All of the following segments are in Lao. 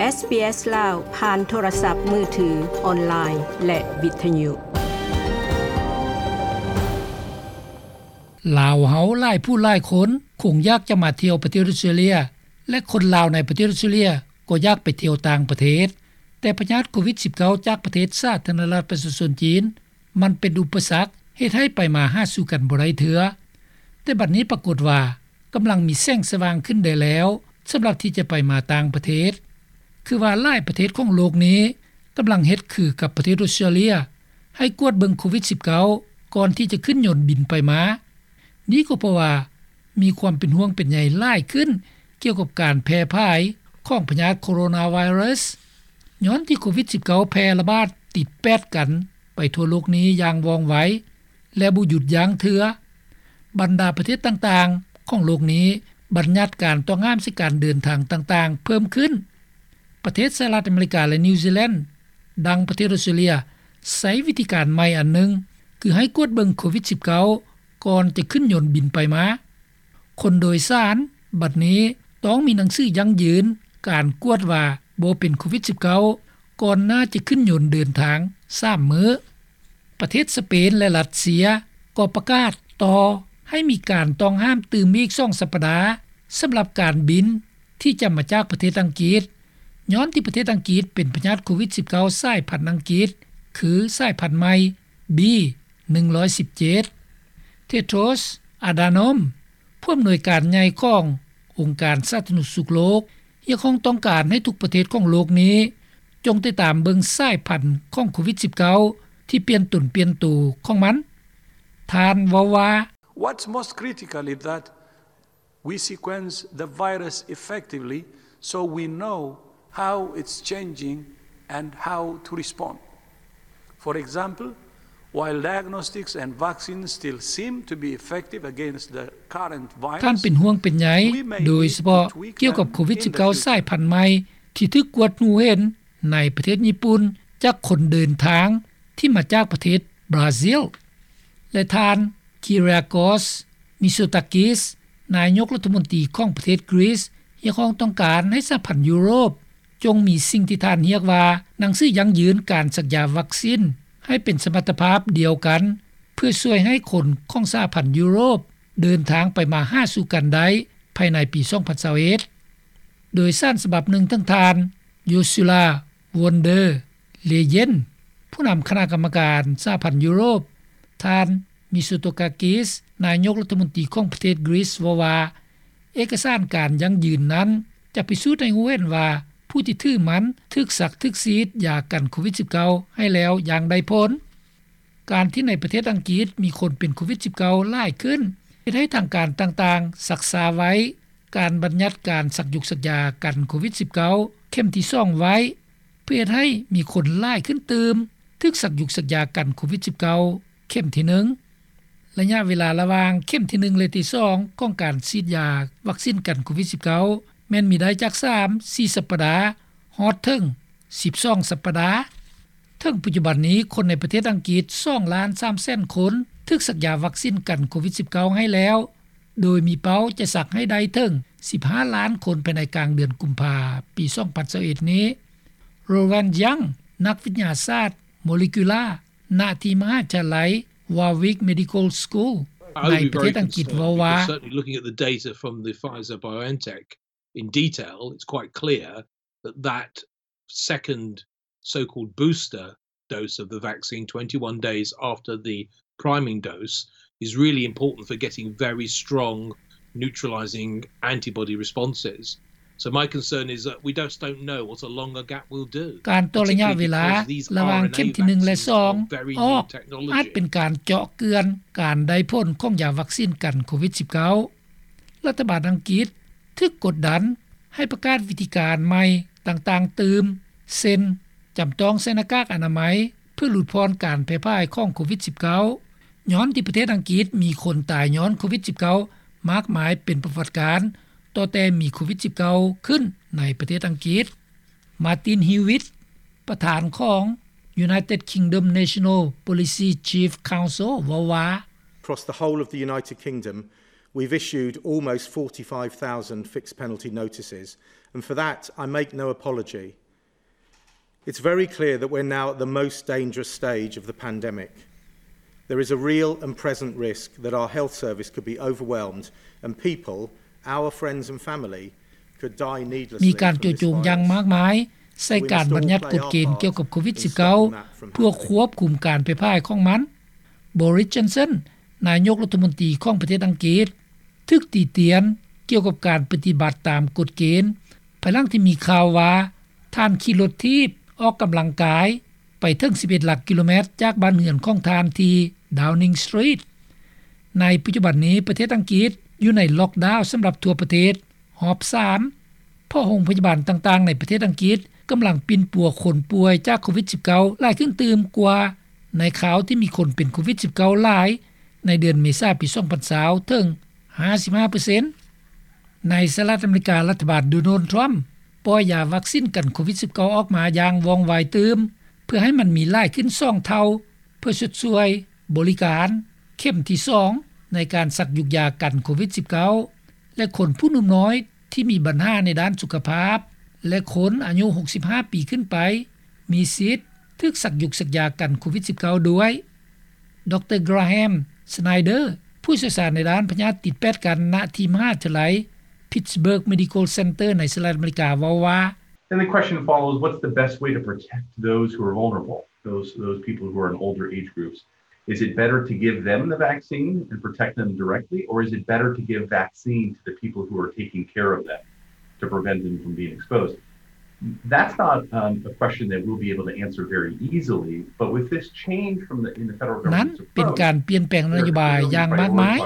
ເອສບີເອສ ລາວ ຜ່ານໂທລະສັບມືຖື, ອອນລາຍ ແລະ ວິທະຍຸ. ລາວເຮົາຫຼາຍຜູ້ຫຼາຍຄົນຄົງຢາກຈະມາທ່ຽວປະເທດອົດສະຕຣາເລຍ ແລະ ຄົນລາວໃນປະເທດອົດສະຕຣາເລຍກໍຢາກໄປທ່ຽວຕ່າງປະເທດ, ແຕ່ພະຍາດໂຄວິດສິບເກົ້າ ຈາກປະເທດສາທາລະນະລັດປະຊາຊົນຈີນ ມັນເປັນອຸປະສັກເຮັດໃຫ້ໄປມາຫາສູ່ກັນບໍ່ໄດ້ເທື່ອ. ແຕ່ບັດນີ້ປາກົດວ່າກຳລັງມີແສງສະຫວ່າງຂຶ້ນໄດ້ແລ້ວ ສຳລັບທີ່ຈະໄປມາຕ່າງປະເທດ, ຄືວ່າຫຼາຍປະເທດຂອງໂລກນີ້ກຳລັງເຮັດຄືກັບປະເທດອົດສະຕຣາເລຍ ໃຫ້ກວດເບິ່ງໂຄວິດສິບເກົ້າ ກ່ອນທີ່ຈະຂຶ້ນຍົນບິນໄປມາ. ນີ້ກໍເພາະວ່າມີຄວາມເປັນຫ່ວງເປັນໃຍຫຼາຍຂຶ້ນກ່ຽວກັບການແຜ່ຜາຍຂອງພະຍາດໂຄໂຣນາໄວຣັສ ຍ້ອນທີ່ໂຄວິດສິບເກົ້າ ແຜ່ລະບາດຕິດແປດກັນໄປທົ່ວໂລກນີ້ຢ່າງວ່ອງໄວ ແລະ ບໍ່ຢຸດຢັ້ງເທື່ອ. ບັນດາປະເທດຕ່າງໆຂອງໂລກນີ້ບັນຍັດການຕ້ອງຫ້າມໃສ່ການເດີນທາງຕ່າງໆເພີ່ມຂຶ້ນ. ປະເທດສະຫະລັດອາເມລິກາ ແລະ ນິວຊີແລນ ດັ່ງປະເທດອົດສະຕຣາເລຍ ໃຊ້ວິທີການໃໝ່ອັນໜຶ່ງ ຄືໃຫ້ກວດເບິ່ງໂຄວິດສິບເກົ້າ ກ່ອນຈະຂຶ້ນຍົນບິນໄປມາ. ຄົນໂດຍສານບັດນີ້ຕ້ອງມີໜັງສືຢັ້ງຢືນການກວດວ່າບໍ່ເປັນໂຄວິດສິບເກົ້າ ກ່ອນໜ້າຈະຂຶ້ນຍົນເດີນທາງສາມມື້. ປະເທດສະເປນ ແລະ ຣັດເຊຍກໍປະກາດຕໍ່ໃຫ້ມີການຕ້ອງຫ້າມຕື່ມອີກສອງສັບປະດາ ສຳລັບການບິນທີ່ຈະມາຈາກປະເທດອັງກິດ ຍ້ອນທີ່ປະເທດອັງກິດເປັນພະຍາດໂຄວິດສິບເກົ້າ ສາຍພັນອັງກິດ ຄືສາຍພັນໃໝ່ ບີ ໜຶ່ງຮ້ອຍສິບເຈັດ. ເທໂດຣສ໌ ອາດານອມ ຜູ້ອຳນວຍການໃຫຍ່ຂອງອົງການສາທາລະນະສຸກໂລກ ຮຽກຮ້ອງຕ້ອງການໃຫ້ທຸກປະເທດຂອງໂລກນີ້ ຈົ່ງຕິດຕາມເບິ່ງສາຍພັນຂອງໂຄວິດສິບເກົ້າ ທີ່ປ່ຽນຕົນປ່ຽນໂຕຂອງມັນ. ທ່ານເວົ້າວ່າ: What's most critical is that we sequence the virus effectively so we know how it's changing and how to respond. For example, while diagnostics and vaccines still seem to be effective against the current virus, ທ່ານເປັນຫ່ວງເປັນໃຍ ໂດຍສະເພາະກ່ຽວກັບໂຄວິດສິບເກົ້າ ສາຍພັນໃໝ່ ທີ່ຖືກກວດຮູ້ເຫັນໃນປະເທດຍີ່ປຸ່ນ ຈາກຄົນເດີນທາງທີ່ມາຈາກປະເທດບຣາຊິລ ແລະ ທ່ານ ຄີຣຽໂກສ ມິໂຊຕາກິສ ນາຍົກລັດຖະມົນຕີຂອງປະເທດກຣີສ ຮຽກຮ້ອງຕ້ອງການໃຫ້ສະຫະພັນຢູໂຣບ ຈົ່ງມີສິ່ງທີ່ທ່ານຮຽກວ່າ ໜັງສືຢັ້ງຢືນການສັກຢາວັກຊິນ ໃຫ້ເປັນສະມັດຕະພາບດຽວກັນ ເພື່ອຊ່ວຍໃຫ້ຄົນຂອງສະຫະພັນຢູໂຣບເດີນທາງໄປມາຫາສູ່ກັນໄດ້ພາຍໃນປີສອງພັນຊາວເອັດ. ໂດຍສານສະບັບໜຶ່ງ ເຖິງທ່ານ ໂຢຊູລາ ວອນເດີ ເລເຢັນ ຜູ້ນຳຄະນະກຳມະການສະຫະພັນຢູໂຣບ, ທ່ານ ມິໂຊໂຕກາກິສ ນາຍົກລັດຖະມົນຕີຂອງປະເທດກຣີສ ເວົ້າວ່າ ເອກະສານການຢັ້ງຢືນນັ້ນ ຈະພິສູດໃຫ້ຮູ້ເຫັນວ່າ ຜູ້ທີ່ຖືມັນຖືກສັກຖືກສີດຢາກັນໂຄວິດສິບເກົ້າ ໃຫ້ແລ້ວຢ່າງໄດ້ຜົນ. ການທີ່ໃນປະເທດອັງກິດມີຄົນເປັນໂຄວິດສິບເກົ້າ ຫຼາຍຂຶ້ນ ເຮັດໃຫ້ທາງການຕ່າງໆຊັກຊ້າໄວ້ ການບັນຍັດການສັກຢາກັນໂຄວິດສິບເກົ້າ ເຂັມທີສອງໄວ້ ເພື່ອເຮັດໃຫ້ມີຄົນຫຼາຍຂຶ້ນຕື່ມ ຖືກສັກຢາກັນໂຄວິດສິບເກົ້າ ເຂັມທີໜຶ່ງ. ໄລຍະເວລາລະຫວ່າງເຂັມທີໜຶ່ງ ແລະ ທີສອງ ຂອງການສີດຢາວັກຊິນກັນໂຄວິດສິບເກົ້າ ແມ່ນມີໄດ້ຈາກສາມ ສີ່ສັບປະດາ ຮອດເຖິງສິບສອງສັບປະດາ. ເຖິງປັດຈຸບັນນີ້ ຄົນໃນປະເທດອັງກິດ ສອງລ້ານສາມແສນຄົນ ຖືກສັກຢາວັກຊິນກັນໂຄວິດສິບເກົ້າ ໃຫ້ແລ້ວ ໂດຍມີເປົ້າຈະສັກໃຫ້ໄດ້ເຖິງສິບຫ້າລ້ານຄົນ ພາຍໃນກາງເດືອນກຸມພາ ປີສອງພັນຊາວເອັດນີ້. ໂຣແວນ ຍັງ ນັກວິທະຍາສາດໂມເລກຸລາ ນະທີ່ມະຫາວິທະຍາໄລ ວາວິກ ເມດິຄໍລ ສະກູລ ໃນປະເທດອັງກິດ ເວົ້າວ່າ: Certainly looking at the data from the Pfizer-BioNTech in detail, it's quite clear that that second so-called booster dose of the vaccine, twenty-one days after the priming dose, is really important for getting very strong neutralizing antibody responses. So my concern is that we just don't know what a longer gap will do, ການຕໍ່ໄລຍະເວລາລະຫວ່າງເຂັມທີໜຶ່ງ ແລະ ສອງ ອອກ ອາດເປັນການເຈາະເກືອນການໄດ້ຜົນຂອງຢາວັກຊິນກັນໂຄວິດສິບເກົ້າ. ລັດຖະບານອັງກິດຖືກກົດດັນໃຫ້ປະກາດວິທີການໃໝ່ຕ່າງໆຕື່ມ ເຊັ່ນ ຈຳຕ້ອງໃສ່ໜ້າກາກອະນາໄມ ເພື່ອຫຼຸດຜ່ອນການແຜ່ຜາຍຂອງໂຄວິດສິບເກົ້າ ຍ້ອນທີ່ປະເທດອັງກິດມີຄົນຕາຍຍ້ອນໂຄວິດສິບເກົ້າ ມາກມາຍເປັນປະຫວັດການ ຕັ້ງແຕ່ມີໂຄວິດສິບເກົ້າຂຶ້ນໃນປະເທດອັງກິດ. ມາຕິນ ຮີວິດ ປະທານຂອງ United Kingdom National Policy Chief Council ເວົ້າວ່າ: Across the whole of the United Kingdom, We've issued almost forty-five thousand fixed penalty notices, and for that, I make no apology. It's very clear that we're now at the most dangerous stage of the pandemic. There is a real and present risk that our health service could be overwhelmed and people, our friends and family, could die needlessly. ມີການຈູ່ໂຈມຢ່າງມາກມາຍໃສ່ການບັນຍັດກົດເກນກ່ຽວກັບໂຄວິດ-ສິບເກົ້າ ເພື່ອຄວບຄຸມການແຜ່ພາຍຂອງມັນ. Boris Johnson ນາຍົກລັດຖະມົນຕີຂອງປະເທດອັງກິດ ຖືກຕິຕຽນກ່ຽວກັບການປະຕິບັດຕາມກົດເກນ ພາຍຫຼັງທີ່ມີຂ່າວວ່າ ທ່ານຂີ່ລົດຖີບອອກກຳລັງກາຍໄປເຖິງສິບເອັດຫຼັກກິໂລແມັດຈາກບ້ານເຮືອນຂອງທ່ານທີ່ Downing Street. ໃນປັດຈຸບັນນີ້ ປະເທດອັງກິດຢູ່ໃນລັອກດາວສຳລັບທົ່ວປະເທດຮອບສາມ ເພາະໂຮງພະຍາບານຕ່າງໆໃນປະເທດອັງກິດກຳລັງປິ່ນປົວຄົນປ່ວຍຈາກໂຄວິດ-ສິບເກົ້າ ຫຼາຍຂຶ້ນຕື່ມກວ່າໃນຄາວທີ່ມີຄົນເປັນໂຄວິດ-ສິບເກົ້າ ຫຼາຍໃນເດືອນເມສາປີສອງພັນຊາວເຖິງຫ້າສິບຫ້າເປີເຊັນ. ໃນສະຫະລັດອາເມລິກາ, ລັດຖະບານໂດນັລ ທຣຳ ປ່ອຍຢາວັກຊິນກັນໂຄວິດ-ສິບເກົ້າ ອອກມາຢ່າງວ່ອງໄວຕື່ມ ເພື່ອໃຫ້ມັນມີຫຼາຍຂຶ້ນສອງເທົ່າ ເພື່ອຊົດຊ່ວຍບໍລິການເຂັມທີສອງ ໃນການສັກຢຸກຢາກັນໂຄວິດ-ສິບເກົ້າ ແລະ ຄົນຜູ້ໜຸ່ມນ້ອຍທີ່ມີບັນຫາໃນດ້ານສຸຂະພາບ ແລະ ຄົນອາຍຸຫົກສິບຫ້າປີຂຶ້ນໄປ ມີສິດຖືກສັກຢຸກສັກຢາກັນໂຄວິດ-ສິບເກົ້າ ດ້ວຍ. ດຣ. Graham Snyder ຜູ້ຊ່ຽວຊານໃນດ້ານພະຍາດຕິດແປດກັນ ນະທີ່ມະຫາວິທະຍາໄລ Pittsburgh Medical Center ໃນສະຫະລັດອາເມລິກາ ເວົ້າວ່າ: And the question follows, what's the best way to protect those who are vulnerable, those, those people who are in older age groups? Is it better to give them the vaccine and protect them directly, or is it better to give vaccine to the people who are taking care of them to prevent them from being exposed? That's not, um, a question that we'll be able to answer very easily, but with this change from the, in the federal government's approach, ນັ້ນເປັນການປ່ຽນແປງນະໂຍບາຍຢ່າງມາກມາຍ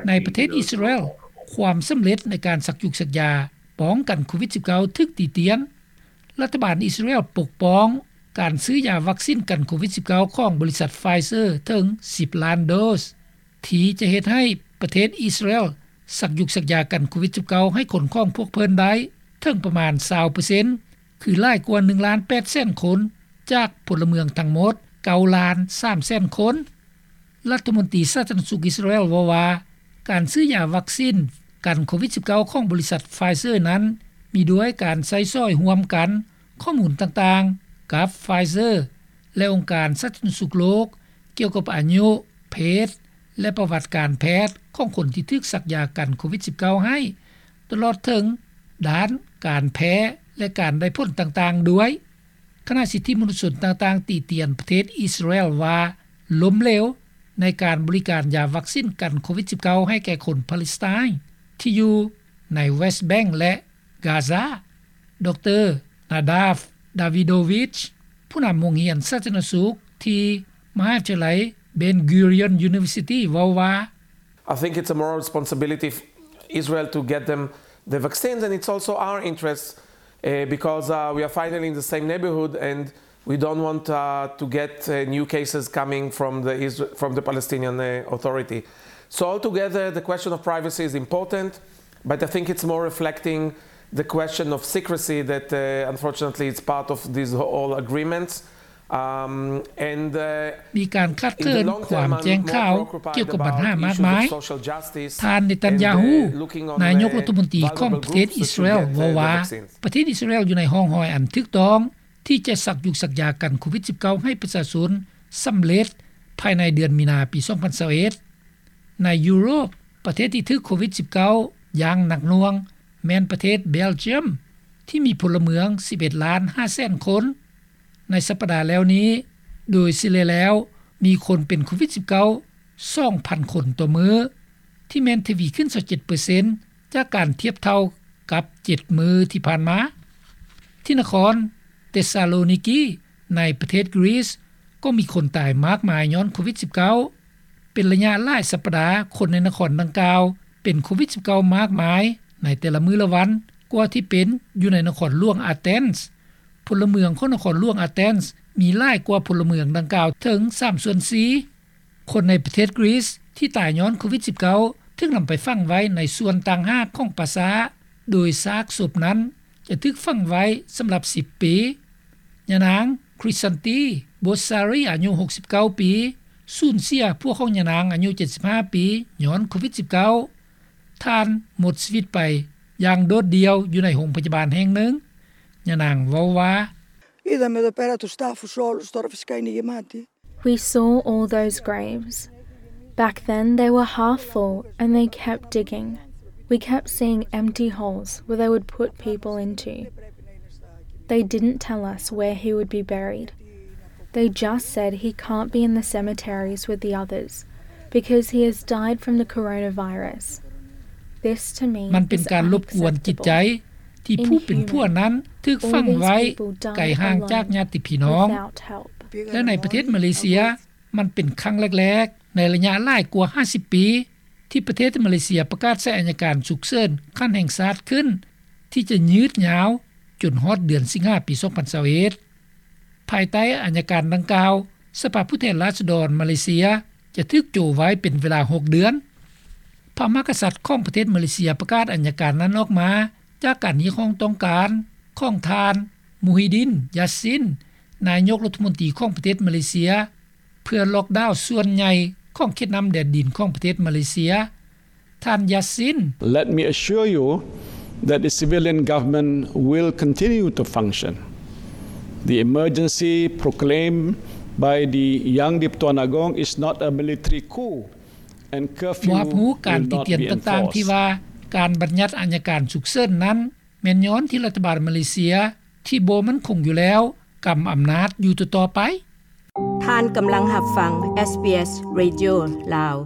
ໃນປະເທດອິດສະຣາແອນ. ຄວາມສຳເລັດໃນການສັກຢຸກສັກຢາປ້ອງກັນໂຄວິດ-ສິບເກົ້າ ຖືກຕິຕຽນ. ລັດຖະບານອິດສະຣາແອນປົກປ້ອງການຊື້ຢາວັກຊິນກັນໂຄວິດ-ສິບເກົ້າ ຂອງບໍລິສັດ Pfizer ເຖິງສິບລ້ານໂດສ ທີ່ຈະເຮັດໃຫ້ປະເທດອິດສະຣາແອນສັກຢຸກສັກຢາກັນໂຄວິດ-ສິບເກົ້າ ໃຫ້ຄົນຂອງພວກເພິ່ນໄດ້ເຖິງປະມານຊາວເປີເຊັນ ຄືຫຼາຍກວ່າໜຶ່ງລ້ານແປດແສນຄົນ ຈາກພົນລະເມືອງທັງໝົດເກົ້າລ້ານສາມແສນຄົນ. ລັດຖະມົນຕີສາທາລະນະສຸກອິດສະຣາແອນເວົ້າວ່າ ການຊື້ຢາວັກຊິນກັນໂຄວິດ-ສິບເກົ້າ ຂອງບໍລິສັດ Pfizer ນັ້ນ ມີດ້ວຍການໃຊ້ສອຍຮ່ວມກັນຂໍ້ມູນຕ່າງໆກັບ Pfizer ແລະ ອົງການສາທາລະນະສຸກໂລກ ກ່ຽວກັບອາຍຸ, ເພດ ແລະ ປະຫວັດການແພດຂອງຄົນທີ່ຖືກສັກຢາກັນໂຄວິດ-ສິບເກົ້າ ໃຫ້ ຕະຫຼອດເຖິງດ້ານການແພ້ ແລະ ການໄດ້ຜົນຕ່າງໆດ້ວຍ. ຄະນະສິດທິມະນຸດຊົນຕ່າງໆຕິຕຽນປະເທດອິດສະຣາແອນວ່າລົ້ມເຫຼວໃນການບໍລິການຢາວັກຊິນກັນໂຄວິດ-ສິບເກົ້າ ໃຫ້ແກ່ຄົນປາເລັສໄຕນທີ່ຢູ່ໃນ West Bank ແລະ Gaza. ດຣ. Nadav Davidovich ຜູ້ນຳໂຮງຮຽນສາທາລະນະສຸກທີ່ມະຫາວິທະຍາໄລ Ben Gurion University ເວົ້າວ່າ: I think it's a moral responsibility of Israel to get them the vaccines, and it's also our interest, uh, because, uh, we are finally in the same neighborhood, and we don't want, uh, to get, uh, new cases coming from the Isra-, from the Palestinian, uh, Authority. So altogether, the question of privacy is important, but I think it's more reflecting the question of secrecy that, uh, unfortunately, it's part of these whole agreements. Um, and, uh, ມີການຂາດເຂີນຄວາມແຈ້ງຂ່າວກ່ຽວກັບບັນຫາມາກມາຍ. ທ່ານ ເນຕັນຍາຮູ ນາຍົກລັດຖະມົນຕີຂອງປະເທດອິດສະຣາແອນ ເວົ້າວ່າ ປະເທດອິດສະຣາແອນຢູ່ໃນຮ່ອງຮອຍອັນຖືກຕ້ອງ ທີ່ຈະສັກຢຸກສັກຢາກັນໂຄວິດ-ສິບເກົ້າ ໃຫ້ປະຊາຊົນສຳເລັດພາຍໃນເດືອນມີນາປີສອງພັນຊາວເອັດ. ໃນຢູໂຣບ, ປະເທດທີ່ຖືກໂຄວິດ-ສິບເກົ້າ ຢ່າງໜັກໜ່ວງ ແມ່ນປະເທດເບລຈຽມ ທີ່ມີພົນລະເມືອງສິບເອັດລ້ານຫ້າແສນຄົນ. ໃນສັບປະດາແລ້ວນີ້, ໂດຍສະເລ່ຍແລ້ວ ມີຄົນເປັນໂຄວິດ-ສິບເກົ້າ ສອງພັນຄົນຕໍ່ມື້, ທີ່ແມ່ນທະວີຂຶ້ນຊາວເຈັດເປີເຊັນ ຈາກການທຽບເທົ່າກັບເຈັດມື້ທີ່ຜ່ານມາ. ທີ່ນະຄອນເຕສຊາໂລນິກີ ໃນປະເທດກຣີສ ກໍມີຄົນຕາຍມາກມາຍຍ້ອນໂຄວິດ-ສິບເກົ້າ. ເປັນໄລຍະຫຼາຍສັບປະດາ, ຄົນໃນນະຄອນດັ່ງກ່າວເປັນໂຄວິດ-ສິບເກົ້າ ມາກມາຍໃນແຕ່ລະມື້ລະວັນ ກວ່າທີ່ເປັນຢູ່ໃນນະຄອນຫຼວງອາເທນ. ພົນລະເມືອງຂອງນະຄອນຫຼວງອາເທນ ມີຫຼາຍກວ່າພົນລະເມືອງດັ່ງກ່າວເຖິງສາມສ່ວນສີ່. ຄົນໃນປະເທດກຣີສທີ່ຕາຍຍ້ອນໂຄວິດ-ສິບເກົ້າ ຖືກນຳໄປຝັງໄວ້ໃນສ່ວນຕ່າງຫາກຂອງປ່າຊ້າ, ໂດຍຊາກສົບນັ້ນຈະຖືກຝັງໄວ້ສຳລັບສິບປີ. ຍານາງ ຄຣິສຊັນຕີ ໂບຊາຣີ ອາຍຸຫົກສິບເກົ້າປີ ສູນເສຍຜົວຂອງຍານາງອາຍຸເຈັດສິບຫ້າປີ ຍ້ອນໂຄວິດ-ສິບເກົ້າ. ທ່ານໝົດຊີວິດໄປຢ່າງໂດດດ່ຽວຢູ່ໃນໂຮງພະຍາບານແຫ່ງໜຶ່ງ. ຍານາງເວົ້າວ່າ Είδαμε εδώ πέρα τους τάφους όλους, τώρα φυσικά είναι γεμάτοι. We saw all those graves. Back then they were half full and they kept digging. We kept seeing empty holes where they would put people into. They didn't tell us where he would be buried. They just said he can't be in the cemeteries with the others because he has died from the coronavirus. This to me ມັນເປັນການລົບກວນຈິດໃຈ ທີ່ຜູ້ເປັນຜົວນັ້ນຖືກຝັງໄວ້ໄກຫ່າງຈາກຍາດຕິພີ່ນ້ອງ ແລະໃນປະເທດມາເລເຊຍ ມັນເປັນຄັ້ງແລກໆໃນໄລຍະຫຼາຍກວ່າຫ້າສິບປີ ທີ່ປະເທດມາເລເຊຍປະກາດໃຊ້ອັຍການສຸກເສີນຂັ້ນແຫ່ງຊາດຂຶ້ນ ທີ່ຈະຍືດຍາວຈົນຮອດເດືອນສິງຫາປີສອງພັນຊາວເອັດ. ພາຍໃຕ້ອັຍການດັ່ງກ່າວ ສະພາຜູ້ແທນລາຊະດອນມາເລເຊຍຈະຖືກໂຈະໄວ້ເປັນເວລາຫົກເດືອນ. ພະມະຫາກະສັດຂອງປະເທດມາເລເຊຍປະກາດອັຍການນັ້ນອອກມາ ຈາກການຮຽກຮ້ອງຕ້ອງການຂອງທ່ານ ມູຮີດິນ ຢາຊິນ ນາຍົກລັດຖະມົນຕີຂອງປະເທດມາເລເຊຍ ເພື່ອລັອກດາວສ່ວນໃຫຍ່ຂອງເຂດນ້ຳແດນດິນຂອງປະເທດມາເລເຊຍ. ທ່ານ ຢາຊິນ Let me assure you that the civilian government will continue to function. The emergency proclaimed by the Yang di-Pertuan Agong is not a military coup and curfew ບໍ່ຮັບຮູ້ການຕິຕຽນຕ່າງໆ ທີ່ວ່າການບັນຍັດອັຍການສຸກເສີນນັ້ນ ແມ່ນຍ້ອນທີ່ລັດຖະບານມາເລເຊຍທີ່ບໍ່ໝັ້ນຄົງຢູ່ແລ້ວ ກຳອຳນາດຢູ່ຕໍ່ໆໄປ. ທ່ານກຳລັງຮັບຟັງ SBS Radio ລາວ.